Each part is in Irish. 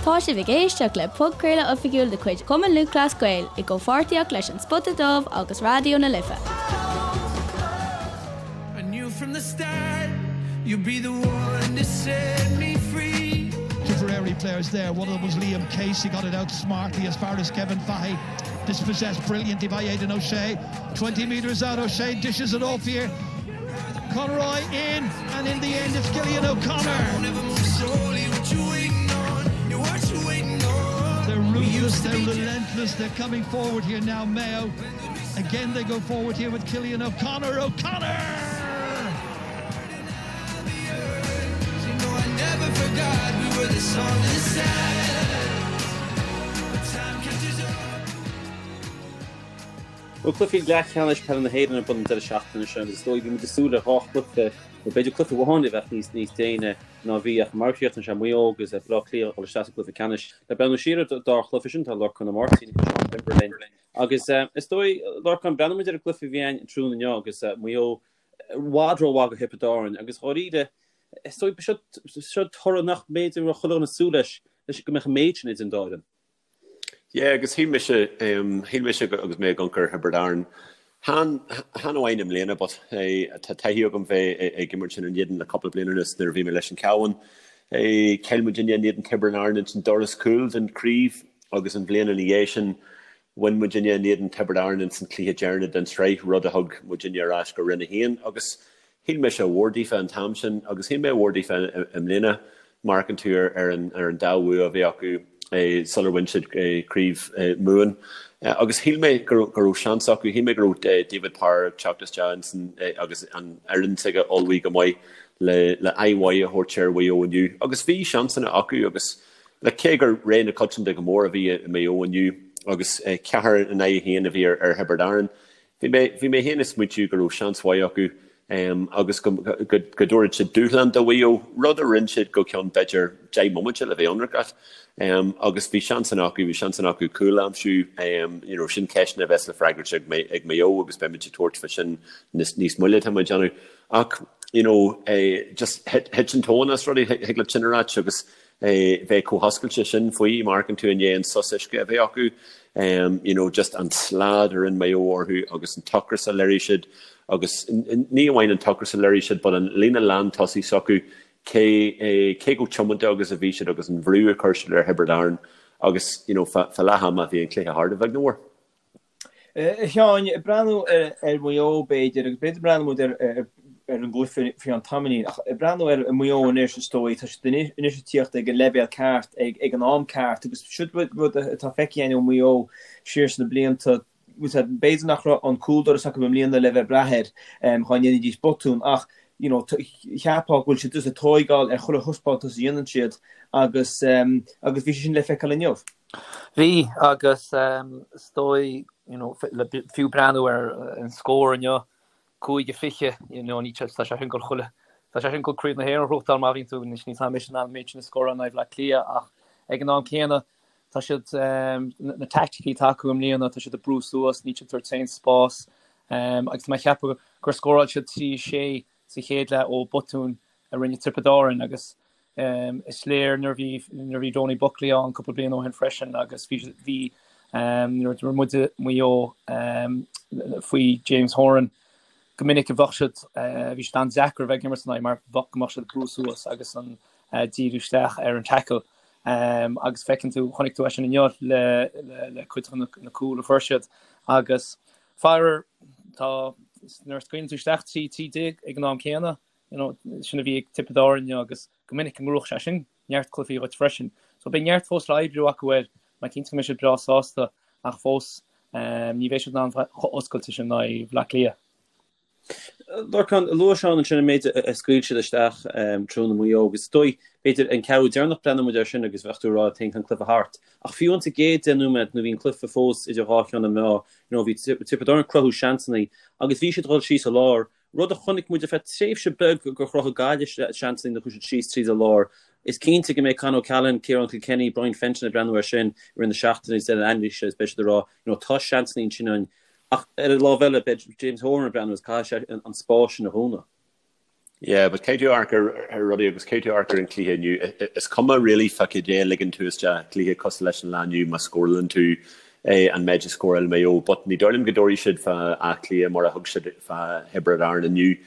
Tá sibh ag éisteacht le podchraoladh oifigiúil de chuid Chumann Lúthchleas Gael i gcomhpháirtíocht leis An Spota Dubh agus Raidió na Life. I knew from the start you'd be the one to set me free. Tipperary players there. One of them was Liam Casey, got it out smartly as far as Kevin Fahey. Dispossessed brilliantly by Aidan O'Shea. 20 metres out, O'Shea dishes it off here. Conroy in, and in the end it's Cillian O'Connor. They're ruthless, they're relentless, they're coming forward here now, Mayo. Again they go forward here with Cillian O'Connor. O'Connor! Bhuel, cluichí leathcheannais peile na hÉireann ar bun an deireadh seachtaine seo agus is dóigh bhí muid ag súil le dhá chluiche, nó b'fhéidir cluiche amháin a bheadh níos níos déine ná bhí ach mar a chríochnaigh sé Maigh Eo agus Baile Átha Cliath ag dul isteach sa gcluiche ceannais. Le breathnú siar ar an dá chluiche sin tá Lorcán Ó Máirtín agus Seán Denvir linn agus is dóigh, Lorcán, breathnóidh muid ar an gcluiche a bhí ann tráthnóna inniu agus Maigh Eo i bhfad rómhaith do Thiobraid Árann agus dháiríre is dóigh seo seo toradh nach mb'fhéidir go raibh chuile dhuine ag súil leis leis go mbeadh an méid sin idir an dá fhoireann. Yeah, agus shíl mise, shíl mise agus mé ag amharc ar Thiobraid Árann, chan, chan amháin i mbliana but tá taithí agam bheith ag imirt ina n-éadan le cúpla bliain anuas nuair a bhí mé leis an Cabhán. Chaill muidinne in éadan Tiobraid Árann ins an doras cúil den chraobh agus an bhliain ina dhiaidh sin bhain muidinne in éadan Tiobraid Árann ins an cluiche deireanach den tsraith, rud a thug muidinne ar ais go Roinn 1 agus Shíl mise mhór daofa an t-am sin agus shíl mé mhór daofa i mbliana. Má amharcann tú ar an dá bhua a bhí acu sular bhain siad Craobh Mumhan. Agus shíl mé go raibh seans acu, shíl mé go raibh David Power ag teacht isteach ansin agus an fhoireann s'aige ullmhaithe go maith le aghaidh mhaith a thabhairt ar Mhaigh Eo inniu. Agus bhí seansanna acu agus cé gur rogha na coitianta go mór a bhí i Maigh Eo inniu agus ceathair in aghaidh a haon a bhí ar Thiobraid Árann, Bhí mé, bhí mé féin ag smaointiú go raibh seans mhaith acu agus go, go, go dtabharfadh siad dúshlán do Mhaigh Eo, rud a rinne siad go ceann b'fhéidir 10 mbomaite le bheith ionraic. Agus bhí seansanna acu, bhí seansanna acu cúl a aimsiú, you know, sin ceisteanna a bheas le freagairt ag, ag Maigh Eo agus beimid ag tabhairt fá sin níos, níos moille tá mé ag déanamh. Ach, you know, just thit, thit an tóin as rudaí, thig leat sin a ráit agus, bheith chomh hoscailte sin faoi, má amharcann tú i ndiaidh an sos uisce a bheith acu, you know, just an slad a rinne Maigh Eo orthu agus an t-ocras a léirigh siad agus ní amháin an t-ocras a léirigh siad but an líne lántosaigh s'acu, cé cé chomh tiomanta agus a bhí siad agus an bhrú a chuir siad ar Thiobraid Árann agus, you know, fá leath ama bhí an cluiche thart a bheag nó a mhór. A Sheáin, ag breathnú ar Mhaigh Eo b'fhéidir, agus b'fhéidir breathnú muid ar an gcluiche faoi cheann tamaillín, ach ag breathnú ar Mhaigh Eo anois is dóigh, tá siad anois ag tíocht ag an leibhéal ceart ag an am ceart agus siod rud atá feicthe againn ó Mhaigh Eo siar sna blianta, b'fhéidir nach raibh an cúldoras acu i mbliana le bheith ag brath air dhá ndéanfaidís botún ach you know cheapfá go bhfuil siad just ag tóigeáil ar chuile thaispeántas a dhéanann siad agus agus bhí sé sin le feiceáil inniu. Bhí, agus is dóigh, you know, le fiú breathnú ar an scór inniu, 5-20, you know, ní tá sé sin ag dul chuile, tá sé sin ag dul Craobh na hÉireann a ghnóthachtáil má bhíonn tú, anois níl a fhios agam an mbeidh siad in ann an méid sin a scóráil in aghaidh Bhaile Átha Cliath ach ag an am céanna tá siad, na taicticí atá acu i mbliana, tá siad ag brú suas, níl siad ag tabhairt aon spás agus tá mé ag ceapadh gur scóráil siad 3-6 sa chéad leath ó botún a rinne Tiobraid Árann agus is léir nuair a bhí nuair a bhí Donie Buckley ann cúpla bliain ó shin freisin agus bhí bhí nuair a d'imir muide Maigh Eo faoi James Horan go minic a bheadh siad bhí siad an-deacair a bheith ag imirt ina aghaidh mar bheadh go mbeadh siad ag brú suas agus an díriú isteach ar an tackle agus feiceann tú chonaic tú é sin inniu le le le cuid de na cúil a fuair siad agus Faraor, tá, nuair a scaoileann tú isteach 13 13 ag an am céanna, you know, sin a bhí ag Tiobraid Árann inniu agus go minic go ngnóthódh sé sin neart cluichí dhuit freisin. So beidh neart fós le oibriú acu air, mé cinnte go mbeidh siad breá sásta ach fós ní bheidh siad in ann bheith chomh oscailte sin in aghaidh Bhaile Átha Cliath. Lorcán, luaigh Seán ansin an méid a scaoil siad isteach tráthnóna Maigh Eo agus is dóigh, b'fhéidir, an ceathrú deireanach breathnóidh muid air sin agus bheadh tú ag rá tá an cluiche thart. Ach fiú insa gcéad 10 nóiméad nuair a bhí an cluiche fós idir dhá cheann na meá, you know, bhí Tiobraid Árann ag cruthú seansanna agus bhí siad ag dul síos an lár, rud a chonaic muid ar feadh tréimhse beag gur chruthaigh Gaillimh seansanna nuair a chuaigh siad síos tríd an lár. Is cinnte go mbeidh Con O'Callaghan, Ciarán Kilkenny, Brian Fenton ag breathnú air sin i rith na seachtaine agus deireadh anailíse agus beidh siad ag rá, you know, tá seansanna ansin againn Ach ar an lámh eile, beidh James Horan ag breathnú agus caithfidh sé an spás sin a dhúnadh. Yeah, but caithfidh tú amharc ar rudaí agus caithfidh tú amharc ar an cluiche inniu. Is cuma really fá cad é a ligeann tú isteach cluiche cosúil leis an lá inniu má scórálann tú an méid a scóráil Maigh Eo. But ní dóigh liom go dtabharfaidh siad fá Áth Cliath mar a thug siad fá Thiobraid Árann inniu.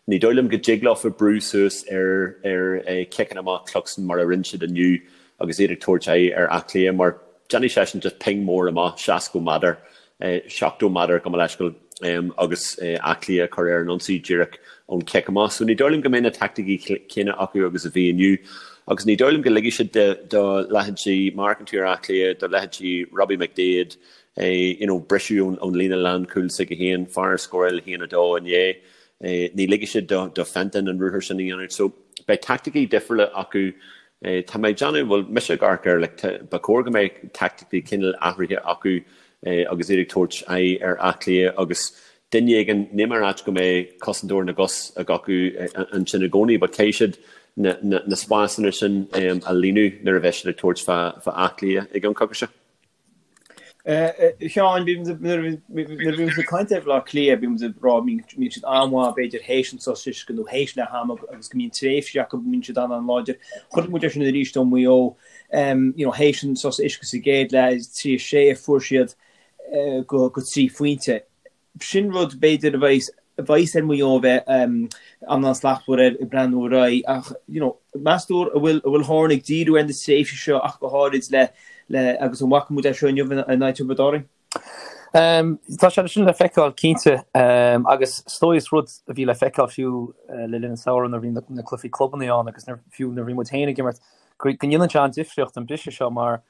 Ní dóigh liom go dtig leofa brú suas ar ar ciceanna amach Cluxton mar a rinne siad inniu agus iad ag tabhairt aghaidh ar Áth Cliath mar déanfaidh seisean just ping mór amach 60 méadar 70 méadar gabh mo leithscéal agus Áth Cliath a chur ar an ionsaí díreach ón chic amach. So ní dóigh liom go mbeidh na taicticí céanna acu agus a bhí inniu agus ní dóigh liom go ligfidh siad do leithéidí má amharcann tú ar Áth Cliath, do leithéidí Robbie McDaid, you know, briseadh ón líne lánchúil s'aige féin, fear a scóráil 1-2 inné, ní ligfidh siad do Fenton an ruathar sin a dhéanamh. So beidh taicticí difriúla acu Tá mé ag déanamh, bhuel, mise ag amharc air, like, ba chóir go mbeadh taicticí cineál athraithe acu agus iad ag tabhairt aghaidh ar Áth Cliath agus duine éigin, níl mé ag ráit go mbeidh cosantóir na gcos ag acu ansin i gcónaí, but caithfidh siad na, na, na spásanna sin a líonadh nuair a bheidh siad ag tabhairt fá, fá Áth Cliath i gceann coicíse. Sheáin, nuair a bhí muid ag caint ar Bhaile Átha Cliath, bhí muid ag rá mbíonn siad an-mhaith b'fhéidir théis an sos uisce nó théis leath ama agus go mbíonn tréimhsí acu go mbíonn siad an-an-láidir. Chonaic muid é sin arís ó Mhaigh Eo, you know, théis an sos uisce sa gcéad leath, 3 6 a fuair siad go 3 phointe. Sin rud, b'fhéidir, a bheas a bheas ar Mhaigh Eo a bheith an-an-slachtmhar air ag breathnú ar aghaidh ach, you know, meas tú an bhfuil an bhfuil Horan ag díriú ar na tréimhsí seo ach go háirid le le agus an bhfaca muid é seo inniu in aghaidh Tiobraid Árann? Tá sé sin le feiceáil cinnte agus is dóigh is rud a bhí le feiceáil fiú le linn an samhradh nuair a bhí na na cluichí clubanna ann agus nuair fiú nuair a bhí muid féin ag imirt go go ndéanann sé an-difríocht an briseadh seo mar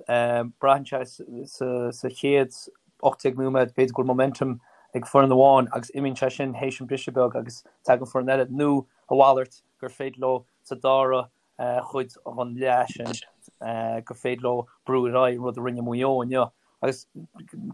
Braitheann sé sa chéad 18 nóiméad, b'fhéidir go bhfuil momentum ag foireann amháin agus imíonn sé sin théis an briseadh beag agus tagann foireann eile, nó a mhalairt, gur féidir leo sa dara chuid den leath sin gur féidir leo brú ar aghaidh, an rud a rinne Maigh Eo inniu. Agus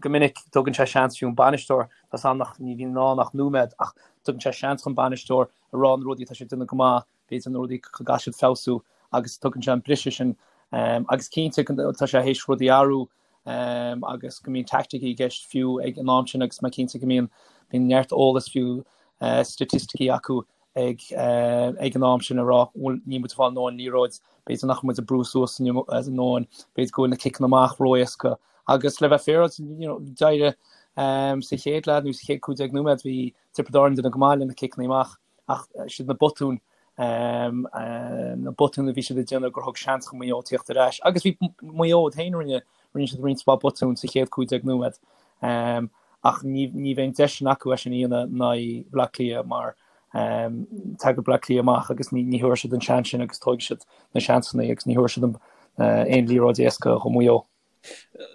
go minic tugann sé seans fiú an bainisteoir, tá 's agam nach ní bhíonn ann ach nóiméad, ach tugann sé seans chun bainisteoir a rá na rudaí atá sé ag déanamh go maith, b'fhéidir na rudaí go gcaithfidh siad feabhsú agus tugann sé an briseadh sin agus cinnte tá sé théis rudaí a athrú agus go mbíonn teaicticí i gceist fiú ag an am sin agus mé cinnte go mbíonn bíonn neart eolas fiú staitisticí acu ag ag an am sin a rá bhfuil níl muid ag fáil a ndóthain liathróid, b'fhéidir nach bhfuil muid ag brú suas a ndóthain, b'fhéidir go bhfuil na ciceanna amach ró-éasca agus le bheith féaráilte you know d'éirigh sa chéad leath nó sa chéad 15 nóiméad bhí Tiobraid Árann ag déanamh go maith le na ciceanna amach. Ach siad na botúin, na botúin a bhí siad ag déanamh gur thug seans do Mhaigh Eo tíocht ar ais. Agus bhí Maigh Eo iad féin, rinne, rinne siad roinnt mhaith botún sa chéad 15 nóiméad. Ach ní, ní bheidh an deis sin acu é sin a dhéanamh in aghaidh Bhaile Átha Cliath mar tagann Baile Átha Cliath amach agus ní, ní thabharfaidh siad an seans sin agus tógfaidh siad na seansanna agus ní thabharfaidh siad aon liathróid éasca do Mhaigh Eo.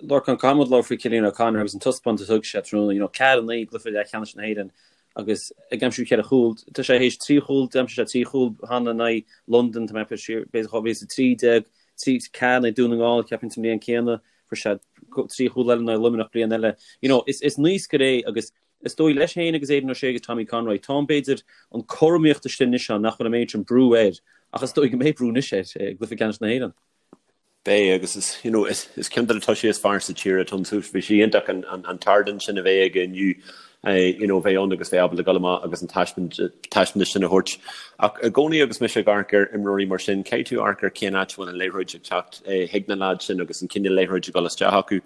Lorcán, caithfidh muid labhairt faoi Cillian O'Connor agus an taispeántas a thug sé tráthnóna, you know, 4-9 i gcluiche leathcheannais na hÉireann agus ag aimsiú cheithre chúl. Tá sé théis trí chúl, d'aimsigh sé trí chúl cheana in aghaidh Londain, tá mé ag siar, b'fhéidir 2013, 3 4 in aghaidh Dún na nGall, ceapaim sa mbliain céanna, fuair sé trí chúl eile in aghaidh Luimneach bliain eile. You know, is, is naoscaire é agus is dóigh leis féin agus Aidan O'Shea agus Tommy Conroy, tá an, b'fhéidir, an cothromaíocht istigh anois ann nach bhfuil an méid sin brú air ach is dóigh go mbeidh brú anois air i gcluiche ceannais na hÉireann. Beidh, agus is, you know, is, is ceann de na tosaithe is fearr sa tír atá ann. So bhí sé iontach an, an, an t-ardán sin a bheith aige inniu, you know, bheith ann agus bheith ábalta dul amach agus an taispeántas sin a thabhairt. Ach i gcónaí agus mise ag amharc ar imreoirí mar sin, caithfidh tú amharc ar cén áit a bhfuil an liathróid ag teacht chuig na leaids sin agus an cineál liathróid ag dul isteach acu.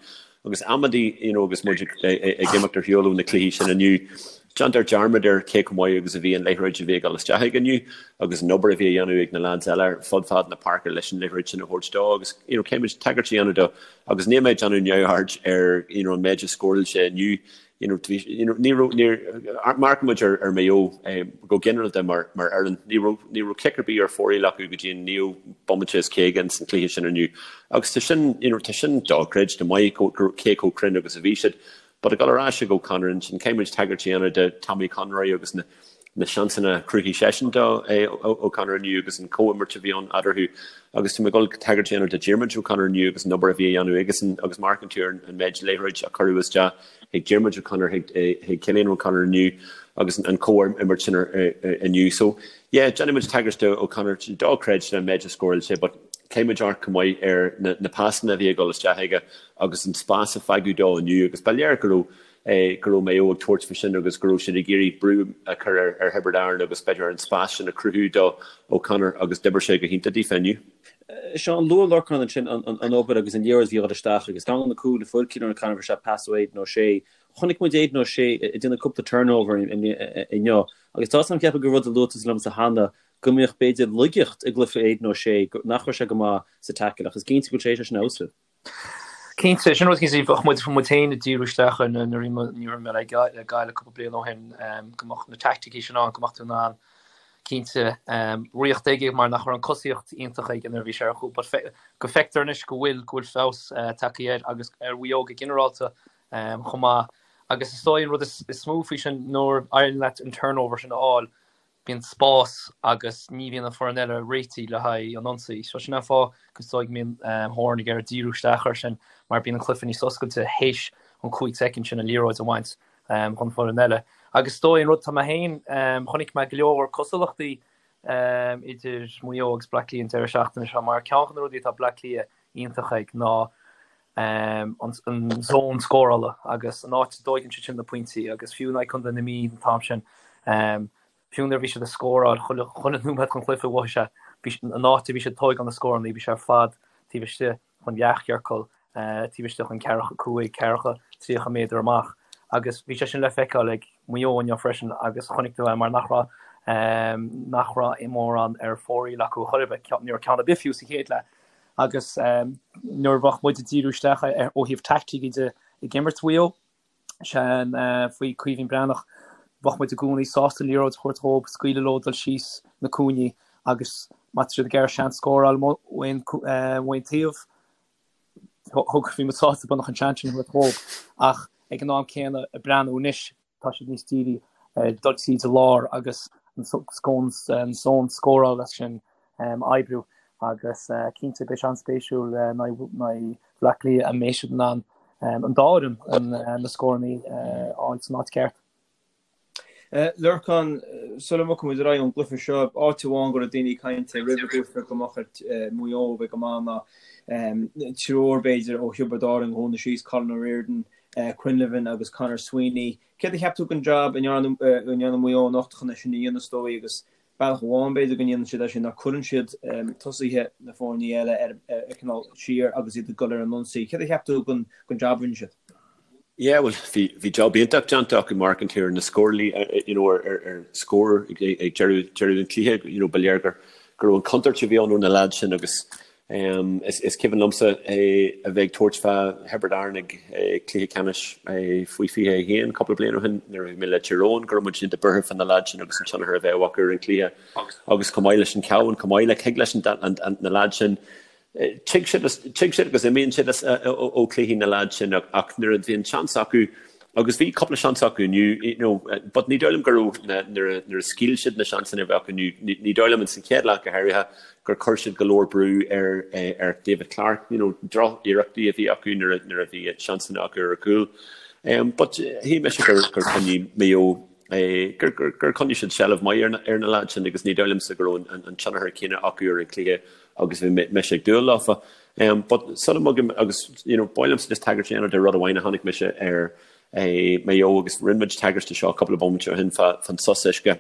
Agus amantaí, you know, agus muid ag imeacht ar shiúl ó na cluichí sin inniu, déantar dearmad ar cé chomh maith agus a bhí an liathróid a bhí ag dul isteach aige inniu agus an obair a bhí a dhéanamh ag na lads eile ar fud fad na páirce leis an liathróid sin a thabhairt dó agus, you know, caithfidh muid tagairt a dhéanamh dó agus níl mé ag déanamh neamhaird ar, you know, an méid a scóráil sé inniu. You know, bhí, you know, ní raibh, níor, amharcann muid ar, ar Maigh Eo eh, go ginearálta mar, mar fhoireann, ní raibh, ní raibh cic ar bith ar fóraoil acu go dtí an naoú bomaite is 50 ins an cluiche sin inniu. Agus tá sin, you know, tá sin dochreidte maith go, go, cé chomh cruinn agus a bhí siad. But ag dul ar ais ag O'Connor ansin, caithfidh muid tagairt a dhéanamh do Tommy Conroy agus na, na seansanna a chruthaigh seisean do O'Connor inniu agus an comhimirt a bhí ann eadarthu agus tá mé ag dul tagairt a dhéanamh do Diarmuid O'Connor inniu agus an obair a bhí a dhéanamh aigesan agus má amharcann tú ar an méid liathróid a cuireadh isteach chuig Diarmuid O'Connor chuig Cillian O'Connor inniu agus an comhimirt sin inniu. So yeah, déanfaidh muid tagairt do O'Connor dochreidte an méid a scóráil sé but caithfidh muid amharc chomh maith ar na pasanna a bhí ag dul isteach aige agus an spás a fágadh dó inniu agus ba léir go raibh. go raibh Maigh Eo ag tabhairt faoi sin agus go raibh siad ag iarraidh brú a chur ar Thiobraid Árann agus b'fhéidir an spás sin a chruthú do O'Connor agus d'oibir sé go hiontach daofa inniu. Seán, luaigh Lorcán ansin an obair agus an liathróid a bhí ag dul isteach agus ceann de na cúil a fuair Cillian O'Connor bhí sé pas ó Aidan O'Shea. Chonaic muid Aidan O'Shea ag déanamh cúpla turnover inniu agus tá a fhios agam ceapaim gur rud a luaigh tusa liomsa cheana go mbeadh b'fhéidir laigeacht i gcluiche Aidan O'Shea nach raibh sé go maith sa tackle ach is cinnte go bhfuil sé sin fheabhsaithe. Cinnte, sin rud cinnte, bheadh muid muid féin ag díriú isteach air nuair a bhí mé le Gaillimh cúpla bliain ó shin, go mbeadh na teaicticí sin ann, go mbeadh tú in ann cinnte riocht aige mar nach raibh an cosaíocht iontach aige nuair a bhí sé ar chúl, but go feictear anois go bhfuil go bhfuil feabhas tagtha air agus ar Mhaigh Eo go ginearálta chomh maith. Agus is dóigh an rud is mó faoi sin nuair a éiríonn leat an turnover sin a fháil, bíonn spás agus ní bhíonn an foireann eile réitithe le haghaidh an ionsaí. So sin an fáth go is dóigh go mbíonn Horan ag iarraidh díriú isteach air sin mar bíonn an cluiche níos oscailte théis an 5 soicind sin an liathróid a bhaint chun foireann eile. Agus is dóigh an rud tá mé féin, chonaic mé go leor cosúlachtaí idir Maigh Eo agus Bleá Cliath an deireadh seachtaine seo mar ceann de na rudaí atá Bleá Cliath iontach ag ná an zón scórála agus an áit a dtóigeann siad sin na pointí agus fiú in aghaidh Contae na Mí an t-am sin, fiú nuair a bhí siad ag scóráil chuile nóiméad den chluiche mhothaigh sé, bhí an áit a bhí siad ag tóigeáil na scóranna, bhí sé ar fad taobh istigh den leathchiorcal, taobh istigh den ceathracha 5, ceathracha, 30 méadar amach agus bhí sé sin le feiceáil ag Maigh Eo inniu freisin agus chonaic tú é mar nach raibh nach raibh mórán ar fóraoil acu a chor ar bith, ní raibh ceann ar bith fiú sa chéad leath. Agus nuair a bheadh muid ag díriú isteach ar ó thaobh taictící de ag imirt Mhaigh Eo, sin faoi Caoimhín Breathnach, bheadh muid i gcónaí sásta an liathróid a thabhairt dhóibh, scaoileadh leo dul síos na cúinní agus má tá siad ag iarraidh seans scóráil ó aon taobh, thug, bhí muid sásta beagnach an seans sin a thabhairt dhóibh. Ach ag an am céanna, ag breathnú anois, tá siad níos dírí ar dul tríd an lár agus an zón scórála sin a oibriú agus cinnte beidh sé an-spéisiúil in aghaidh Bhaile Átha Cliath an mbeidh siad in ann an dá fhoireann na scóranna a fháil san áit cheart. Lorcán, sula mbogfaidh muid ar aghaidh ón gcluiche seo, áit amháin go raibh daoine ag caint roimh an gcluiche go mbeadh ar Mhaigh Eo a bheith go maith ná triúr b'fhéidir ó Thiobraid Árann a dhúnadh síos, Colin O'Riordan, Quinlivan agus Conor Sweeney. Céard a cheap tú den jab a ndearna Maigh Eo anocht chun é sin a dhéanamh is dóigh agus bealach amháin b'fhéidir go ndéanann siad é sin ná cuireann siad tosaithe na foirne eile ar cineál siar agus iad ag dul ar an ionsaí. Céard a cheap tú den jab a rinne siad? Yeah, bhuel, bhí, bhí job iontach déanta acu mar amharcann tú ar na scórálaí, you know, ar, ar, ar scór ag, ag deireadh, deireadh an chluiche, you know, ba léir gur, go raibh an chontúirt a bhí ann ó na lads sin agus Is cuimhin liomsa a bheith ag tabhairt fá Thiobraid Árann ag cluiche ceannais faoi 21 cúpla bliain ó shin nuair a bhí mé le Tír Eoghain go raibh muid iontach buartha fá na leaids sin agus an tionchar a bheadh acu ar an chluiche agus chomh maith leis an Cabhán, chomh maith le thig leis na leaids sin tig siad tig siad agus imíonn siad ó chluichí na leaids sin ach nuair a bhíonn seans acu Agus bhí cúpla seans acu inniu, you know, but ní dóigh liom go raibh na, nuair a, nuair a scaoil siad na seansanna a bhí acu inniu, ní, ní dóigh liom ins an chéad leath go háirithe gur chuir siad go leor brú ar, ar David Clarke, you know, droch-iarrachtaí a bhí acu nuair a, nuair a bhí seansanna acu ar chúl. Um, but shíl mise gur, gur choinnigh Maigh Eo, eh, gur, gur, gur choinnigh siad seilbh maith ar na, ar na lads sin agus ní dóigh liomsa go raibh an, an, an tionchar céanna acu ar an chluiche agus bhí mise ag dúil leofa. But sula mbogaim agus you know ba mhaith liomsa just tagairt a dhéanamh de rud amháin a chonaic mise ar Maigh Eo agus rinne muid tagairt de seo cúpla bomaite ó shin fán sos uisce.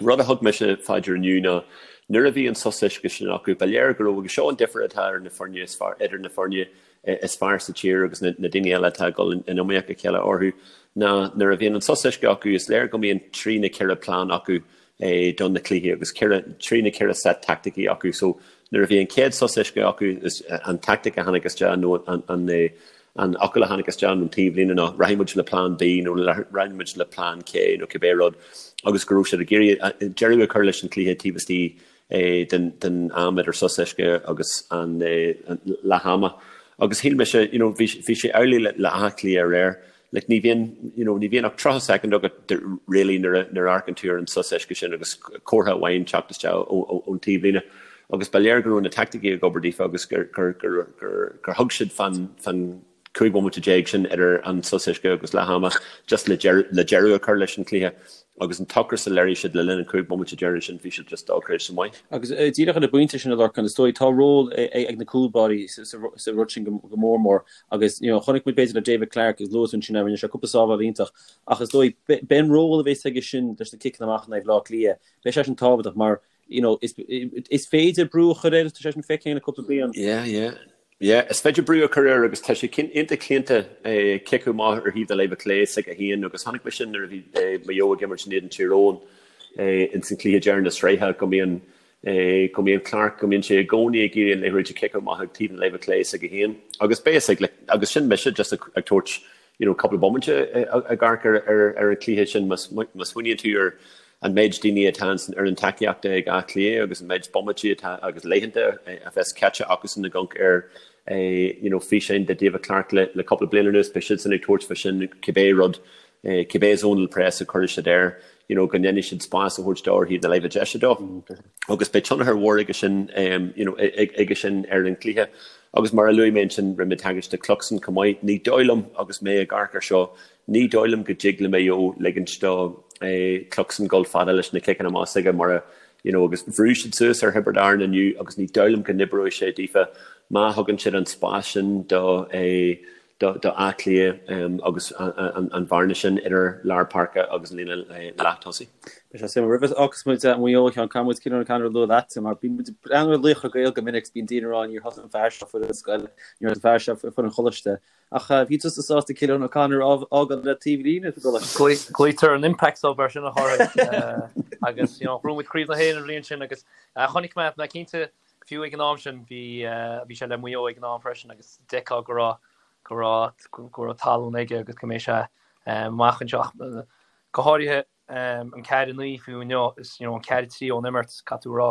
Rud a thug mise fá dear inniu ná nuair a bhí an sos uisce sin acu ba léir go raibh agus seo an difear atá ar na foirne is fearr idir na foirne is fearr sa tír agus na daoine eile atá ag dul in iomaíocht a chéile orthu ná nuair a bhíonn an sos uisce acu is léir go mbíonn trí nó ceithre plean acu do na cluichí agus ceithre, trí nó ceithre set teaicticí acu. So nuair a bhí an chéad sos uisce acu is an tactic a tháinig isteach nó an, an, an fhocal a tháinig isteach ón taobhlíne ná rachaidh muid le plean B nó rachaidh muid le plean K nó cibé rud agus go raibh siad ag iarraidh deireadh a chur leis an chluiche taobh istigh den, den am idir sos uisce agus an leath ama. Agus shíl mise, you know, bhí, bhí sé amhlaidh le, le Áth Cliath aréir. Like ní bhíonn, you know, ní bhíonn ach 30 soicind agat really nuair a, nuair a amharcann tú ar an sos uisce sin agus comhartha amháin teacht isteach ón taobhlíne. Agus ba léir go raibh na teaicticí ag obair daofa agus gur, gur, gur, gur, gur thug siad fán, fán 15 bhomaite sin idir an sos uisce agus leath ama just le deireadh, le deireadh a chur leis an chluiche. Agus an t-ocras a léirigh siad le linn an 5 bomaite deireanach sin, bhí siad just dochreidte maith. Agus díreach ar an bpointe sin a Lorcáin, is dóigh, tá ról ag na cúlbáirí sa rud sin go mór mór agus you know chonaic muid b'fhéidir le David Clarke agus luaigh tú ansin é, rinne sé cúpla sábháil iontach ach is dóigh beidh an ról a bheas aige sin leis na ciceanna amach in aghaidh Bhaile Átha Cliath, beidh sé sin tábhachtach mar you know is is féidir brú a chur air, tá sé sin feicthe againn le cúpla bliain. Yeah, yeah. Yeah, is féidir brú a chur air agus tá sé iontach claonta ciceadh amach ar thaobh na láimhe clé s'aige féin agus chonaic mé sin nuair a bhí Maigh Eo ag imirt in éadan Tír Eoghain ins an cluiche deireanach na sraithe go mbíonn go mbíonn Clarke go mbíonn sé i gcónaí ag iarraidh an liathróid a chiceadh amach ag taobh na láimhe clé s'aige féin agus beidh a fhios ag agus sin mise just ag tabhairt you know cúpla bomaite ag amharc ar ar ar an cluiche sin má smaoiníonn tú ar an méid daoine atá san fhoireann tacaíochta ag Áth Cliath agus an méid bomaití atá agus laethanta a bheas caite acusan ag amharc ar you know físeáin de David Clarke le le cúpla bliain anuas beidh siadsan ag tabhairt fá sin cibé rud cibé zonal press a chuirfidh siad air you know go ndéanfaidh siad spás a thabhairt dó ar thaobh na láimhe deise dó agus beidh tionchar mhór aige sin you know aige sin ar an gcluiche agus mar a luaigh mé ansin rinne mé tagairt do Cluxton chomh maith ní dóigh liom agus mé ag amharc ar seo ní dóigh liom go dtig le Maigh Eo ligint do Cluxton dul fada leis na ciceanna amach s'aige mar a you know agus bhrú siad suas ar Thiobraid Árann inniu agus ní dóigh liom go n-oibreoidh sé daofa má thugann siad an spás sin do do Áth Cliath agus an bhearna sin idir lár páirce agus an líne leath-tosaigh. Beidh sé suimiúil. Roimh a fhágfas muid Maigh Eo, a Sheáin, caithfidh muid Cillian O'Connor a lua leatsa mar bíonn muid ag breathnú ar Laochra Gael go minic 's bíonn daoine ag rá níor thosaigh an fear seo foireann scoile, níor thosaigh an fear seo foireann choláiste. Ach bhí tusa sásta Cillian O'Connor a fhágáil le taobh líne sa gcoláiste. Glaoitear an impact sub air sin a Chárthaigh agus you know bhuaigh muid Craobh na hÉireann an bhliain sin agus chonaic mé mé cinnte Fiú ag an am sin bhí bhí sé le Maigh Eo ag an am freisin agus d'fheicfeá go raibh go raibh go raibh tallann aige agus go mbeidh sé amach anseo ach go háirithe an 4-9 fiú inniu is you know an 4-3 ón imirt caithfidh tú a rá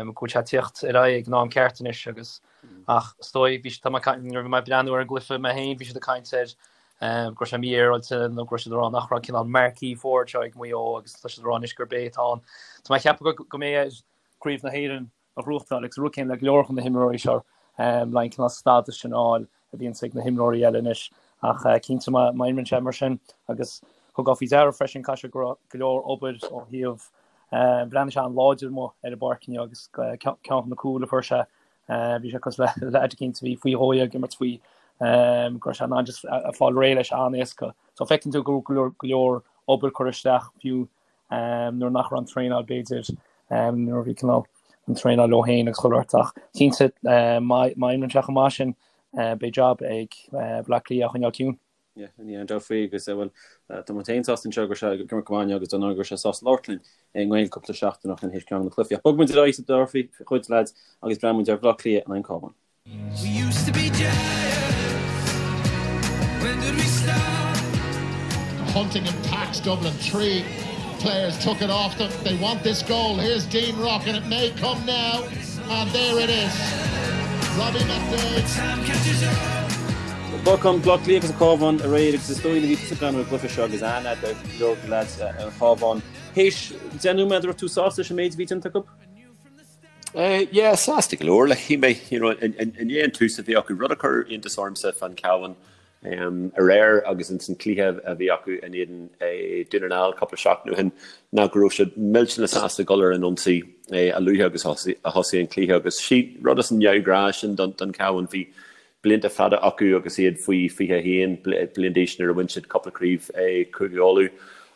go bhfuil sé ag tíocht ar aghaidh ag an am ceart anois agus ach is dóigh bhí tá mé nuair a bhí mé ag breathnú ar an gcluiche mé féin bhí siad ag caint air go raibh sé mífhéaráilte nó go raibh siad ag rá nach raibh cineál marquee forward seo ag Maigh Eo agus tá siad ag rá anois gurb é atá ann. Tá mé ag ceapadh go mbeidh air Craobh na hÉireann a ghnóthachtáil agus an rud céanna le go leor de na himreoirí seo le an cineál stádas sin a fháil a bhíonns ag na himreoirí eile anois ach cinnte má imríonn sé mar sin agus thugá faoi deara freisin caithfidh sé go raibh go leor obair ó thaobh bhreathnaigh sé an-láidir amuigh ar an bpáirc inniu agus ceann de na cúil a fuair sé bhí sé cosúil le leaid eicínt a bhí faoi dhó ag imirt faoi go raibh sé in ann just fáil réidh leis an-éasca. So feiceann tú go raibh go leor obair curtha isteach fiú nuair nach raibh an traenáil b'fhéidir, nuair a bhí cineál an traenáil leo féin agus chuile shórt ach cinnte má imríonn sé chomh maith sin beidh jab ag Baile Átha Cliath a choinneáil ciúin. Yeah, ní aon dabht faoi agus bhuel tá muid féin sásta anseo go raibh sé ag imirt go maith inniu agus dar ndóigh go raibh sé sásta labhairt linn i nGaeilge cúpla seachtain ó shin théis ceann de na cluichí. Ach bogfaidh muid ar aghaidh sa dara chuid lads agus breathnóidh muid ar Bhaile Átha Cliath in aghaidh an Cabhán. We used to be giants. When did we stop? Hunting and packs Dublin. 3 players took it off them. They want this goal. Here's Dean Rock and it may come now. And there it is. Robbie McDaid. Time catches up. Lorcán, Baile Átha Cliath agus an Cabhán aréir agus is dóigh nuair a bhí tusa ag breathnú ar an gcluiche seo agus aithne agat ar go leor de leaids an Chabháin. Théis 10 nóiméad raibh tú sásta leis an méid a bhí déanta acu? Yeah, sásta go leor. Like, shíl mé, you know, i ndiaidh an tús a bhí acu, rud a chuir iontas ormsa fán Chabhán aréir agus ins an cluiche a bhí acu in éadan Dún na nGall cúpla seachtain ó shin, ná go raibh siad millteanach sásta dul ar an ionsaí a luaithe agus a thosaigh an cluiche agus sí rud as an neamhghnáth sin don Chabhán. Bhí blianta fada acu agus iad faoi 21 bliain d'aois nuair a bhain siad cúpla craobh Cúige Uladh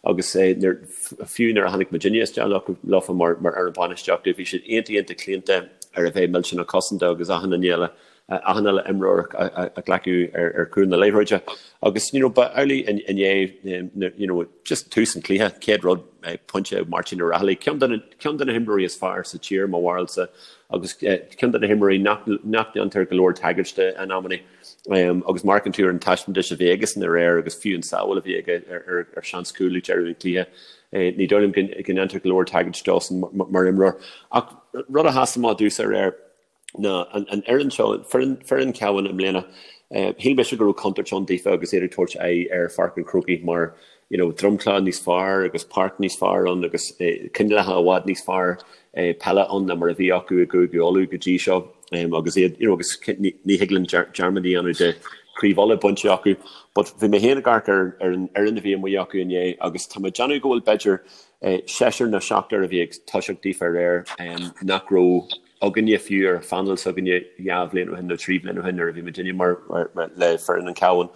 agus fiú nuair a tháinig muidinne isteach leofa mar fhoireann bainistíochta bhí siad iontach iontach claonta ar a bheith millteanach cosanta agus achan duine eile achan uile imreoir a ghlacadh ar chúl na liathróide agus you know ba amhlaidh inné you know just tús an chluiche chéad rud pointe Máirtín Ó Raghallaigh ceann de ceann de na himreoirí is fearr sa tír mo bharúilsa agus ceann de na himreoirí nach ndéantar go leor tagairt de in amannaí. Agus má amharcann tú ar an taispeántas a bhí aigesan aréir agus fiú an sábháil a bhí aige ar seans cúil ag deireadh an chluiche, ní dóigh liom go ndéantar go leor tagairt dósan mar imreoir. Ach rud a sheas amach domhsa aréir ná an fhoireann seo, foireann Chabháin i mbliana, shíl mise go raibh contúirt ann daofa agus iad ag tabhairt aghaidh ar Pháirc an Chrócaigh mar you know dromchla níos fearr agus páirc níos fearr ann agus coinníollacha i bhfad níos fearr peile ann ná mar a bhí acu i gCúige Uladh go dtí seo. agus iad, you know, agus ní thig linn dearmad a dhéanamh de Craobh Uladh bainte acu. But bhí mé féin ag amharc ar ar an fhoireann a bhí amuigh acu inné agus tá mé ag déanamh go bhfuil b'fhéidir seisear nó seachtar a bhí ag toiseacht daofa aréir nach raibh againne fiú ar phainéal s'againne dhá bhliain ó shin nó trí bhliain ó shin nuair a bhí muidinne mar le foireann an Chabháin.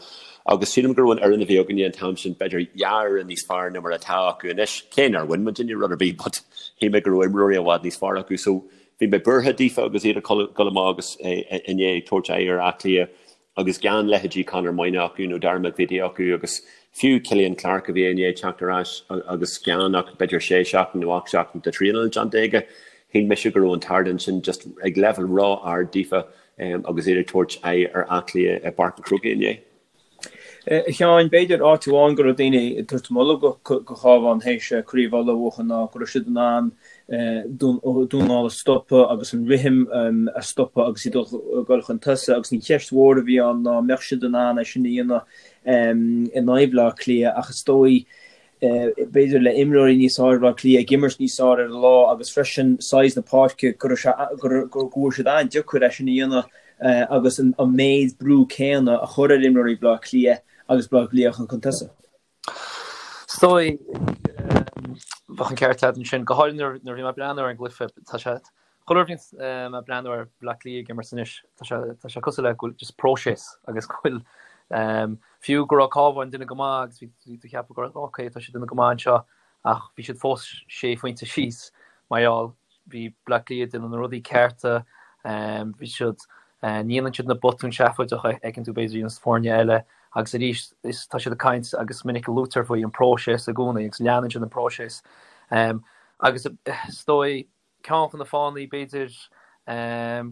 Agus sílim go raibh an fhoireann a bhí againne an t-am sin b'fhéidir dhá fhoireann níos fearr ná mar atá acu anois, cé nár bhain muidinne rud ar bith but shíl mé go raibh imreoirí i bhfad níos fearr acu. So bhí mé buartha daofa agus iad ag dul amach agus inné ag tabhairt aghaidh ar Áth Cliath. Agus gan leithéidí Conor Moynagh acu nó Dara McVeety acu agus fiú Killian Clarke a bhí i ndiaidh teacht ar ais agus gan ach b'fhéidir sé seachtain nó 8 seachtain de thraenáil déanta aige, shíl mise go raibh an t-ardán sin just ag leibhéal ró-ard daofa agus iad ag tabhairt aghaidh ar Áth Cliath i bPáirc an Chrócaigh inné. A Sheáin, b'fhéidir áit amháin go raibh daoine ag tabhairt moladh go Chabhán théis Craobh Uladh a bhuachan ná go raibh siad in ann Dún na nGall a stopadh agus an rithim a stopadh agus iad ag dul chun tosaigh agus an cheist mhór a bhí ann ná an mbeadh siad in ann é sin a dhéanamh in aghaidh Bhaile Átha Cliath ach is dóigh b'fhéidir le imreoirí níos fearr Bhaile Átha Cliath ag imirt níos fearr ar an lá agus freisin size na páirce go raibh sé go bhfuair siad an-deacair é sin a dhéanamh agus an méid brú céanna a chur ar imreoirí Bhaile Átha Cliath agus Baile Átha Cliath chun tosaigh. Is dóigh, bheadh an ceart agat ansin, go háirithe nuair a bhí mé ag breathnú ar an gcluiche, tá sé, chuile uair a bhíonns mé ag breathnú ar Bhleá Cliath ag imirt anois, tá sé, tá sé cosúil le go bhfuil just próiseas agus go bhfuil, fiú go raibh Cabhán ag déanamh go maith agus bhí, bhí tú ag ceapadh go raibh, ok, tá siad ag déanamh go maith anseo ach bhí siad fós sé phointe síos mar gheall Bhí Bleá Cliath ag déanamh na rudaí cearta, bhí siad, ní dhéanann siad na botúin seafóideacha a fheiceann tú b'fhéidir ins foirne eile agus arís is tá siad ag caint agus is minic a luaitear faoi an próiseas i gcónaí agus leanann siad an próiseas. Agus is dóigh ceann de na fáthanna b'fhéidir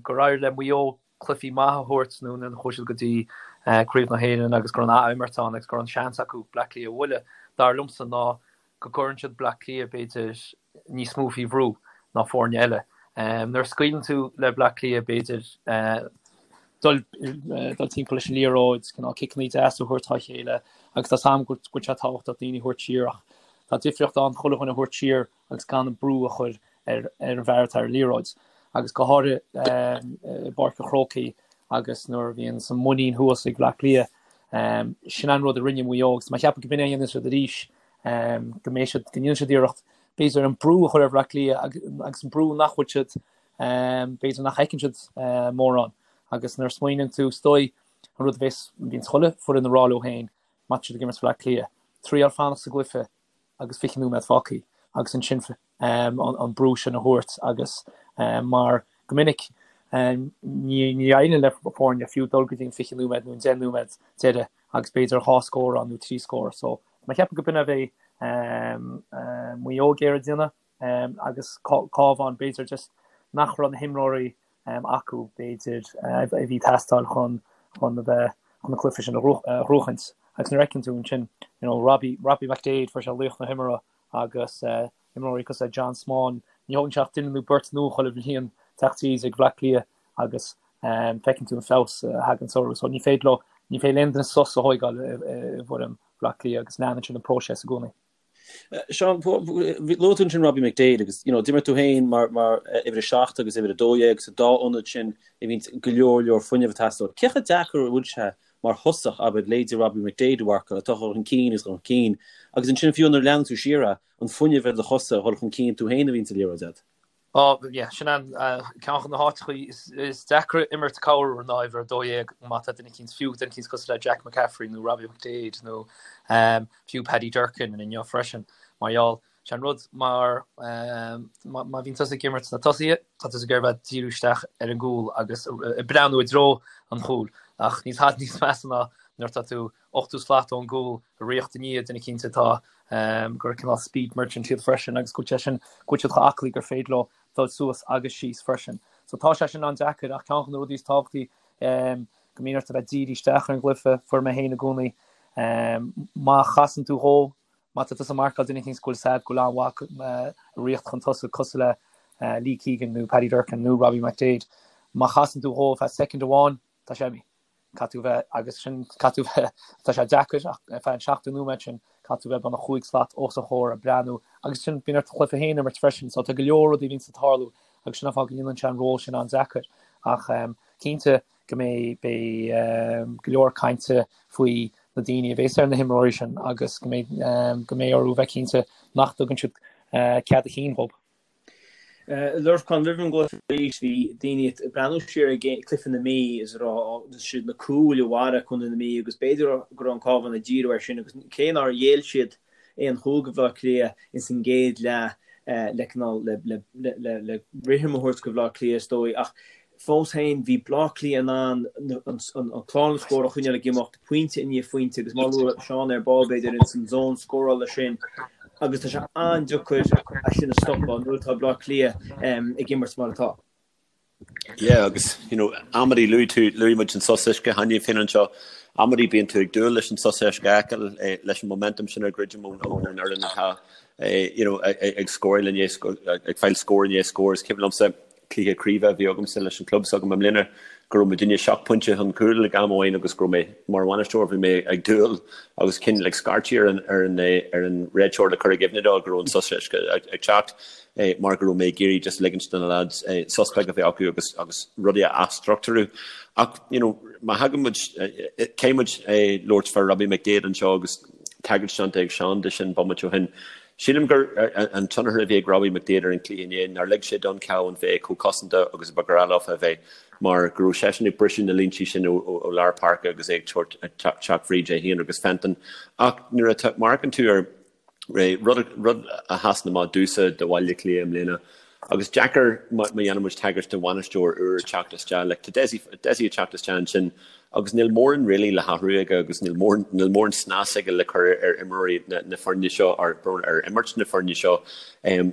gur éirigh le Maigh Eo cluichí maithe a thabhairt nó nuair a chuaigh siad go dtí Craobh na hÉireann agus go raibh an ath-imirt ann agus go raibh an seans acu Bleá Cliath a bhualadh, dar liomsa ná go gcuireann siad Bleá Cliath, b'fhéidir, níos mó faoi bhrú ná foirne eile. Nuair a scaoileann tú le Bleá Cliath, b'fhéidir, dul dul timpeall leis an liathróid, cineál ciceanna deasa a thabhairt dá chéile, agus tá 's a'm go bhfuil sé tábhachtach daoine a thabhairt siar ach tá difríocht ann chuile dhuine a thabhairt siar agus gan an brú a chur ar ar an bhfear atá ar an liathróid. Agus go háirithe i bPáirc an Chrócaigh agus nuair a bhíonn an muinín thuas ag Bleá Cliath, sin an rud a rinne Maigh Eo agus tá mé ag ceapadh go b'in é a dhéanfaidh siad arís go mbeidh siad, go ndéanfaidh siad iarracht, b'fhéidir, an brú a chur ar Bhleá Cliath agus an brú nach bhfuil siad, b'fhéidir nach fheiceann siad mórán. Agus nuair a smaoiníonn tú, is dóigh, an rud a bhéas, bhíonns chuile foireann ag rá leo féin, má tá siad ag imirt Bhleá Cliath, triail fanacht sa gcluiche agus 20 nóiméad fágtha agus ansin an brú sin a thabhairt agus mar go minic ní éiríonn le foirne fiú dul go dtí an 20 nóiméad nó an 10 nóiméad deiridh agus b'fhéidir dhá scór ann nó trí scór. So mé ag ceapadh go b'in a bheidh Maigh Eo ag iarraidh déanamh agus Cabhán b'fhéidir just nach raibh na himreoirí acu b'fhéidir a bhí ag teastáil chun chun a bheith chun an cluiche sin a ghnóthachaint. Agus nuair a fheiceann tú ansin you know Robbie Robbie McDaid fuair sé laoch na himeartha agus imreoirí cosúil le John Small, ní thógann sé ach duine nó beirt nua chuile bhliain teacht tríd ag Bhleá Cliath agus feiceann tú an feabhas a thagann orthu. So ní féidir leo, ní féidir le aon duine sos a thóigeáil i bhfoireann Bhleá Cliath agus leanann siad an próiseas i gcónaí. Seán, luaigh tú ansin Robbie McDaid agus you know, d'imir tú féin mar, mar uimhir a 7 agus uimhir a 12 sa dá ionad sin a bhíonn go leor leor fuinnimh ag teastáil. Cé chomh deacair a bhfuil sé mar thosach, abair, leithéidí Robbie McDaid a mharcáil, atá chun cinn agus chun cinn, agus ansin fiú nuair a leanann tú siar é, an fuinneamh ar do chosa a dhul chun cinn tú féin a bhíonn sa liathróid agat. Ó, yeah, sin an ceann de na háiteachaí is deacra imirt corruair ná uimhir 12 má tá duine eicínt, fiú duine eicínt cosúil le Jack McCaffrey nó Robbie McDaid nó fiú Paddy Durcan inniu freisin, mar gheall, sé an rud mar má bhíonn tusa ag imirt sna tosaithe, tá tusa ag iarraidh bheith díriú isteach ar an gcúl agus ag breathnú i dtreo an chúil ach níl tada níos measa ná nuair atá tú 80 slat ón gcúl ag ritheacht i ndiaidh duine eicínt atá gur cineál speed merchant iad freisin agus go bhfuil sé sin, go bhfuil siad chomh aclaí gur féidir leo dul suas agus síos freisin. So tá sé sin an-deacair ach ceann de na rudaí is tábhachtaí go mbíonn ort a bheith dírithe isteach ar an gcluiche, fuair mé féin i gcónaí, má chasann tú dhó, má tá tusa ag marcáil duine eicínt go bhfuil sad go bhfuil an-mhaith ag ritheacht chun tosaigh cosúil le Lee Keegan nó Paddy Durcan nó Robbie McDaid, má chasann tú dhó feadh soicind amháin, tá sé imithe. Caithfidh tú bheith, agus sin, caithfidh tú bheith, tá sé deacair ach ar feadh an 70 nóiméad sin, caithfidh tú bheith beagnach chúig slat os a chomhair ag breathnú agus sin, bíonn ort an cluiche féin a imirt freisin, so tá go leor rudaí a bhíonns ag tarlú agus sin an fáth go ndéanann sé an ról sin an-deacair. Ach cinnte go mbeidh beidh go leor cainte faoi na daoine a bhéas ar na himreoirí sin agus go mbeidh go mbeidh orthu bheith cinnte nach dtugann siad cead a chinn dhób. Lorcán, roimh an gcluiche arís, bhí daoine ag breathnú siar ar cluiche na Mí is ag rá is iad na cúil a mharaigh Contae na Mí agus b'fhéidir go raibh an Cabhán ag díriú air sin agus cé nár ghéill siad aon chúl go Bhleá Cliath ins an gcéad leath le cineál le le rithim a thabhairt go Bhleá Cliath is dóigh ach fós féin bhí Bleá Cliath in ann an clár na scór a choinneáil ag imeacht pointe i ndiaidh phointe agus mar a luaigh Seán ar ball b'fhéidir ins an zón scórála sin agus tá sé an-deacair é sin a stopadh nuair atá Bleá Cliath ag imirt mar atá. Yeah agus you know amannaí luaigh tú, luaigh muid an sos uisce cheana féin anseo, amannaí bíonn tú ag dúil leis an sos uisce a fheiceáil eh, leis an momentum sin a dhruidim ón ón fhoireann atá eh, you know ag scóráil i ndiaidh ag fáil scór i ndiaidh scór is cuimhin liomsa cluiche craoibhe a bhí agamsa leis an club s'agam i mbliana go raibh muidinne seacht bpointe chun cúil ag am amháin agus go raibh mé mar bhainisteoir bhí mé ag dúil agus cineál ag scairtigh ar an ar an ar an réiteoir le cur i gcuimhne dó go raibh an sos uisce ag teacht mar go raibh mé ag iarraidh just ligint do na lads sos beag a bheith acu agus agus rudaí a athstruchtúrú. Ach you know má thagann muid caithfidh muid labhairt fá Robbie McDaid anseo agus tagairt déanta ag Seán de sin bomaite ó shin. Sílim gur an tionchar a bhí ag Robbie McDaid ar an chluiche inné nár lig sé don Chabhán bheith chomh cosanta agus a ba ghnách leofa a bheith mar go raibh seisean ag briseadh na línte sin ó lár páirce agus é ag teacht fríd é féin agus Fenton. Ach nuair a amharcann tú ar rud rud a sheasann amach domhsa do Bhaile Átha Cliath i mbliana agus deacair má dhéanann muid tagairt do bhainisteoir úr ag teacht isteach like tá Dessie Dessie ag teacht isteach ansin Agus níl mórán really le hathrú aige agus níl mórán, níl mórán snas aige le cur ar imreoirí na, na foirne seo, ar, ar imirt na foirne seo.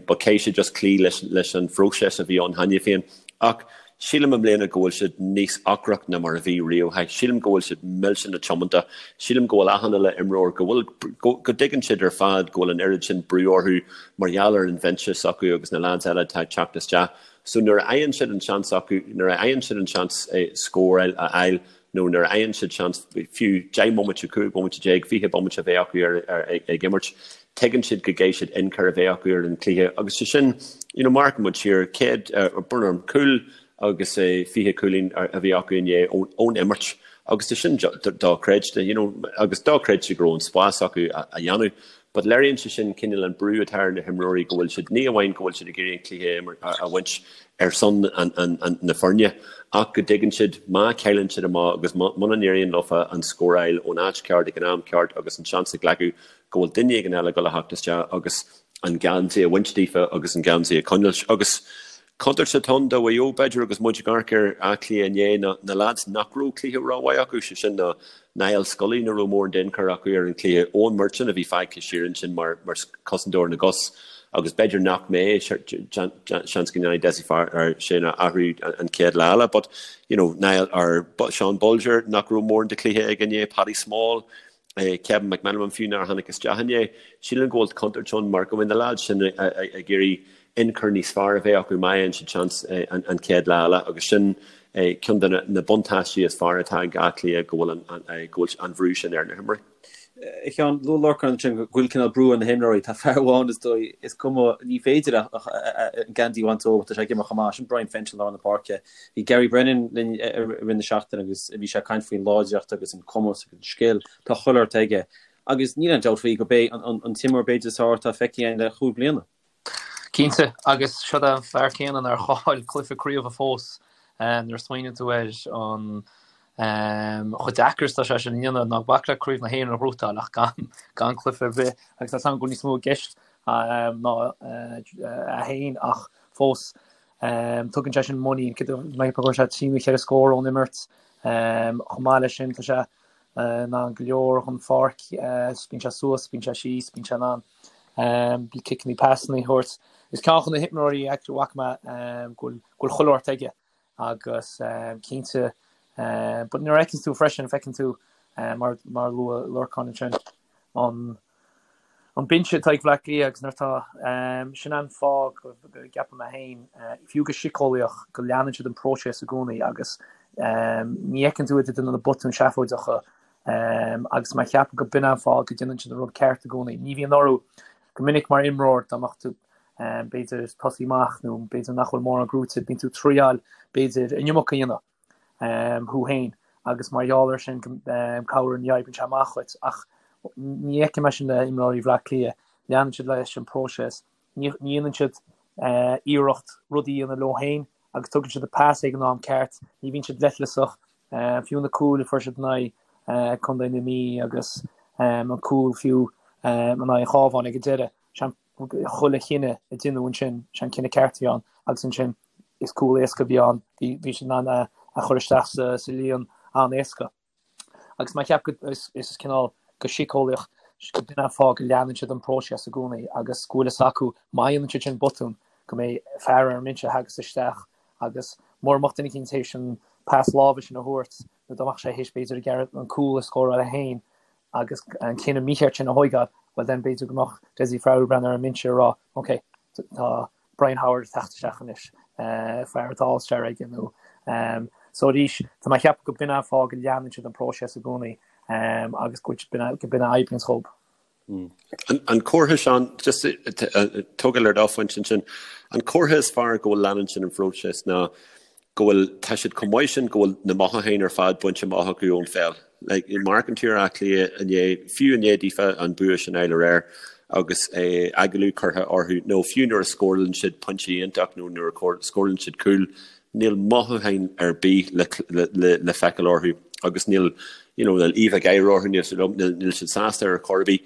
But caithfidh sé just cloí leis, leis an phróiseas a bhí ann cheana féin. Ach sílim i mbliana go bhfuil siad níos ocrach ná mar a bhí riamh. Sílim go bhfuil siad millteanach tiomanta. Sílim go bhfuil achan uile imreoir, go bhfuil, go, go dtuigeann siad ar fad go bhfuil an oiread sin brú orthu mar gheall ar an bhinse s'acu agus na lads eile atá ag teacht isteach. So nuair a fhaigheann siad an seans acu, nuair a fhaigheann siad an seans scóráil a fháil nó nuair a fhaigheann siad seans fiú 10 mbomaite, 15 bomaite, 20 bomaite a bheith acu ar, ar, ag imirt, tuigeann siad go gcaithfidh siad ionchur a bheith acu ar an chluiche agus sé sin, you know, má amharcann muid siar, céad, brón orm, cúl agus 20 cúilín a bhí acu inné ón, ón imirt agus tá sin dochreidte, you know, agus dochreidte go raibh an spás acu a dhéanamh. But léiríonn sé sin cineál an brú atá ar na himreoirí go bhfuil siad, ní amháin go bhfuil siad ag iarraidh an cluiche a bhaint ar son na foirne, ach go dtuigeann siad má chailleann siad amach agus muna n-éiríonn leofa an scór a fháil ón áit ceart ag an am ceart agus an seans a ghlacadh go bhfuil duine éigin eile ag dul a theacht isteach agus an geansaí a bhaint díofa agus an geansaí a choinneáil. Agus Contúirt atá ann do Mhaigh Eo, b'fhéidir, agus muid ag amharc ar Áth Cliath inné, ná na leaids nach raibh cluiche rómhaith acu, sé sin ná Niall Scully, nach raibh mórán d'ionchur acu ar an chluiche, Eoin Murchan a bhí fágtha siar ansin mar chosantóir na gcos agus b'fhéidir nach mbeidh, seans go ndéanfaidh Dessie Farrell sin a athrú an chéad lá eile but, you know, Niall, or Sean Bolger nach raibh mórán de chluiche aige inné, Paddy Small, Kevin McManamon fiú nár tháinig isteach inné. Sílim go bhfuil contúirt ann mar go mbeidh na leaids sin ag iarraidh ionchur níos fearr a bheith acu má fhaigheann siad seans an chéad lá eile agus sin ceann de na buntáistí is fearr atá ag Áth Cliath go bhfuil an go bhfuil an bhrú sin ar na himreoirí. A Sheáin, luaigh Lorcán ansin go bhfuil cineál brú ar na himreoirí. Tá fear amháin is dóigh, is cuma, ní féidir ach an geansaí a bhaint dó, tá sé ag imirt chomh maith, sin Brian Fenton i lár na páirce. Bhí Gary Brennan linn i rith na seachtaine agus bhí sé ag caint faoin láidreacht agus an cumas agus an scil. Tá chuile shórt aige agus níl aon dabht faoi gurb é an t-imreoir b'fhéidir is fearr atá feicthe againn le chúig bliana. Cinnte, agus seo é an fear céanna nár chaill cluiche craoibhe fós. Nuair a smaoiníonn tú ar an chomh deacair is atá sé sin a dhéanamh, ná bac le Craobh na hÉireann a ghnóthachtáil ach gan cluiche ar bith, agus tá a fhios agam go bhfuil níos mó i gceist ná é féin ach fós tugann sé sin muinín. Cé go bhfuair sé trí nó cheithre scór ón imirt, chomh maith leis sin tá sé in ann go leor den pháirc, bíonn sé suas, bíonn sé síos, bíonn sé in ann ciceanna, pasanna a thabhairt. Is ceann de na himreoirí a bhfaca mé go bhfuil chuile shórt aige agus cinnte but nuair a fheiceann tú freisin, feiceann tú mar mar a luaigh Lorcán ansin an an binse atá ag Bleá Cliath agus nuair atá sin an fáth go gceapaim mé féin fiú go síceolaíoch go leanann siad an próiseas i gcónaí agus ní fheiceann tú iad ag déanamh na botúin seafóideacha Agus mé ag ceapadh go b'in an fáth go déanann siad an rud ceart i gcónaí. Ní bhíonn orthu go minic mar imreoir dá mbeadh tú. b'fhéidir tosaí amach nó b'fhéidir nach bhfuil mórán gnóite, bíonn tú ag triáil b'fhéidir an iomarca a dhéanamh thú féin agus mar gheall air sin corruair ní oibríonn sé amach dhuit ach ní fheicim é sin le imreoirí Bhaile Átha Cliath, leanann siad leis an bpróiseas, ní dhéanann siad iarracht rudaí a dhéanamh leo féin agus tugann siad an pas ag an am ceart, ní bhíonn siad leithleasach, fiú na cúil a fuair siad in aghaidh Contae na Mí agus an cúl fiú in aghaidh an Chabháin ag an deireadh, chuile chinneadh a deineadh ansin, sé an cinneadh ceart a bhí ann agus ansin is cúl éasca a bhí ann, bhí siad in ann é a chur isteach sa líon an-éasca. Agus mé ag ceapadh go is is cineál go síceolaíoch go b'in an fáth go leanann siad an próiseas i gcónaí agus go bhfuil fhios acu má dhéanann siad sin botún go mbeidh fear ar an mbinse a thagas isteach agus mura mbeadh duine eicínt théis an pas láimhe sin a thabhairt nó dá mbeadh sé théis b'fhéidir ag iarraidh an cúl a scóráil é féin agus an cinneadh mícheart sin a thóigeáil, bhuel then b'fhéidir go mbeadh Dessie Farrell ag breathnú ar an mbinse ag rá ok, tá Brian Howard ag teacht isteach anois, fear atá All-Star aige nó so arís tá mé ag ceapadh go b'in an fáth go leanann siad an próiseas i gcónaí agus go b'in a oibríonns dhób. An comhartha, Seán, just tógáil ar do phointe ansin, an comhartha is fearr go bhfuil leanann siad an phróiseas ná go bhfuil, tá siad chomh maith sin go bhfuil na mothúcháin ar fad bainte amach acu ón pheil. Like, amharcann tú ar Áth Cliath inné, fiú i ndiaidh daofa an bua sin a fháil aréir agus agallamh curtha orthu, nó fiú nuair a scórálann siad pointe iontach nó nuair a scórálann siad cúl, níl mothúcháin ar bith le, le, le feiceáil orthu agus níl, you know, níl íomhá gáire orthu, níl, níl siad sásta ar chor ar bith.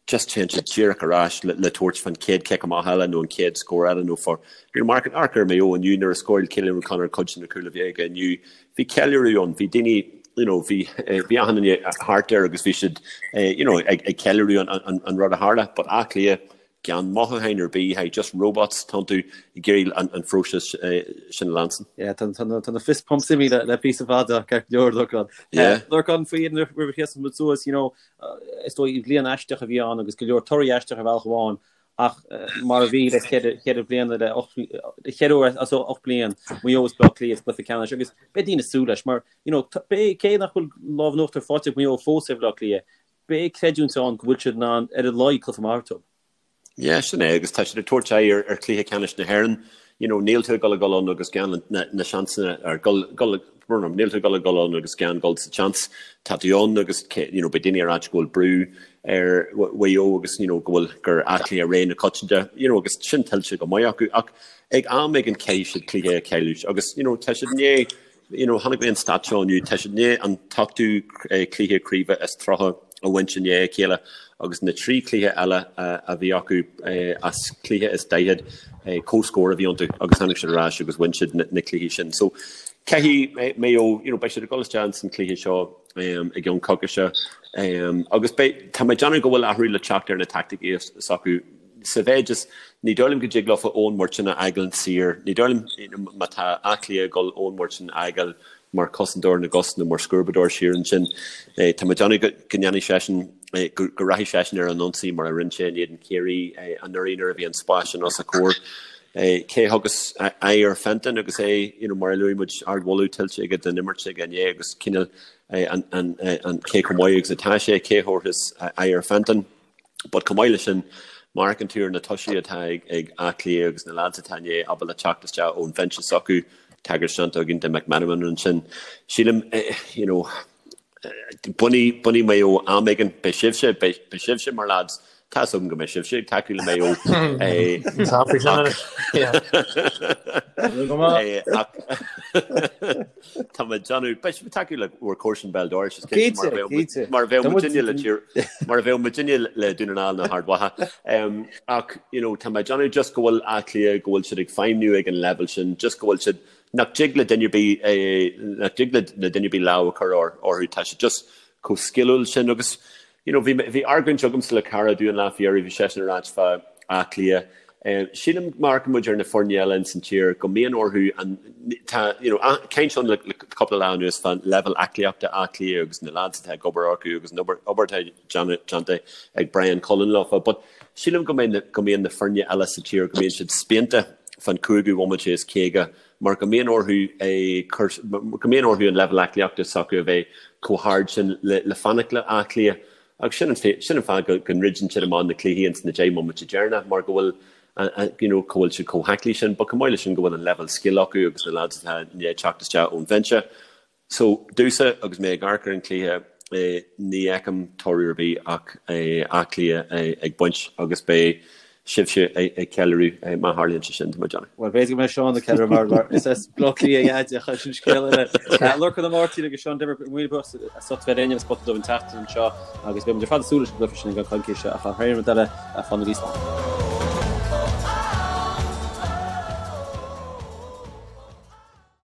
just téann siad díreach ar ais le le tabhairt fán chéad chic amach eile nó an chéad scór eile nó for you know amharc amharc ar Maigh Eo inniu nuair a scóráil Cillian O'Connor cuid de na cúil a bhí aige inniu bhí ceiliúradh ann bhí daoine you know bhí bhí achan duine thart air agus bhí siad you know ag ag ceiliúradh an an an rud a tharla but Áth Cliath gan mothúcháin ar bith hey just robots tá tú ag iarraidh an an phróiseas sin a leanstan. Yeah tá tá tá na fist pumps imithe le le píosa fada ceart go leor Lorcán. Yeah. Lorcán faoi roimh a sheasann muid suas you know Is dóigh bliain aisteach a bhí ann agus go leor torthaí aisteach ar bhealach amháin ach mar a bhí le cheithre bliana le cheithre huair as 8 bliain Maigh Eo is Baile Átha Cliath sa gcluiche ceannais agus beidh daoine ag súil leis mar you know beidh cé nach bhfuil lámh in uachtar faighte ag Maigh Eo fós ar Bhaile Átha Cliath beidh creidiúint ann go bhfuil siad in ann ar a laghad cluiche maith a thabhairt dóibh. Yeah, sin é, agus tá siad ag tabhairt aghaidh ar ar chluiche ceannais na hÉireann. You know, níl tú ag dul a dhul ann agus gan na na seansanna ar gul gul brón orm, níl tú ag dul a dhul ann agus gan dul sa tseans. Tá tú ann agus you know, beidh daoine ag ráit go bhfuil brú ar Mhaigh Eo agus you know, go bhfuil gur Áth Cliath ré na coitianta, you know, agus sin tuillte go maith acu ach ag am éigin caithfidh siad cluiche a chailliúint agus you know, tá siad i ndiaidh You know, chonaic mé an stat seo inniu, tá siad i ndiaidh an t-ochtú cluiche craoibhe is 30 a bhaint i ndiaidh a chéile agus na trí chluiche eile a bhí acu as cluiche is 40, comhscór a bhí iontu agus tháinig siad ar ais agus bhain siad na cluichí sin. So, caithfidh Maigh Eo, you know, beidh siad ag dul isteach ins an cluiche seo i gceann coicíse agus beidh, tá mé ag déanamh go bhfuil athrú le teacht ar na taicticí s'acu. Sa mhéid is, ní dóigh liom go dtig leofa Eoin Murchan a fhágáil saor. Ní dóigh liom, má tá Áth Cliath ag dul Eoin Murchan a fhágáil mar chosantóir na gcos nó mar scuabadóir siar ansin, tá mé ag déanamh go ndéanfaidh seisean, go rachaidh seisean ar an ionsaí mar a rinne sé in éadan Chiarraí anuraidh nuair a bhí an spás sin os a chomhair. Cé a thugas aghaidh ar Fenton agus é, you know, mar a luaigh muid, ardmholadh tuillte aige don imirt aige inné agus cineál an cé chomh maith agus atá sé, cé a thabharfas aghaidh ar Fenton? But chomh maith leis sin, má amharcann tú ar na tosaithe atá ag Áth Cliath agus na lads atá i ndiaidh ábalta teacht isteach ón bhinse s'acu, tagairt déanta againn do McMenamin ansin, sílim, you know, bainfidh, bainfidh Maigh Eo am éigin, beidh sibhse, beidh, beidh sibhse mar lads, tá 'fhios agam go mbeidh sibhse ag tacú le Maigh Eo. Ach, Tá mé ag déanamh, beidh sibh ag tacú le bhur comharsan béal dorais, is cinnte, mar a bheadh muid, mar a bheadh muidinne le tír, mar a bheadh muidinne le Dún na nGall nó Ard Mhacha. Ach, you know, tá mé ag déanamh just go bhfuil Áth Cliath, go bhfuil siad ag feidhmniú ag an leibhéal sin, just go bhfuil siad, nach dtig le duine ar bith, nach dtig le duine ar bith lámh a chur orthu, tá siad just chomh sciliúil sin agus, You know, bhí, bhí argóint agamsa le cara domh an lá faoi dheireadh, bhí seisean ag ráit fá Áth Cliath. Sílim, má amharcann muid ar na foirne eile ins an tír, go mbíonn orthu an, tá, you know, caint ann le, le cúpla lá anuas fán leibhéal aclaíochta Áth Cliath agus na lads atá ag obair orthu agus an obair, obair atá déanta ag Brian Cullen leofa. But sílim go mbeidh na, go mbíonn na foirne eile sa tír, go mbíonn siad spíonta fán chúigiú bhomaite is 50 mar go mbíonn orthu cur, go mbíonn orthu an leibhéal aclaíochta s'acu a bheith chomh hard sin le, le fanacht le Áth Cliath. Agus sin an, sin an fáth go, go ndruideann siad amach na cluichí ins na 10 mbomaite deireanach mar go bhfuil You know, cá bhfuil siad chomh haclaí sin, but chomh maith leis sin go bhfuil an leibhéal scil acu agus na lads atá i ndiaidh teacht isteach ón bhinse. So, domhsa, agus mé ag amharc ar an chluiche, ní fheicim toradh ar bith ach Áth Cliath ag baint agus beidh sibhse ag ceiliúradh má tharlaíonn sé sin, tá mé ag déanamh. Bhuel, b'fhéidir go mbeidh Seán ag ceiliúradh mar is as Baile Átha Cliath a Dhaid ach sin scéal eile. Lorcán Ó Máirtín agus Seán Denvir, míle buíochas as ucht bheith linn ar an Spota Dubh an tseachtain seo agus beidh muid ar fad ag súil leis an gcluiche sin i gceann coicíse ach thar aon rud eile, fanaigí slán.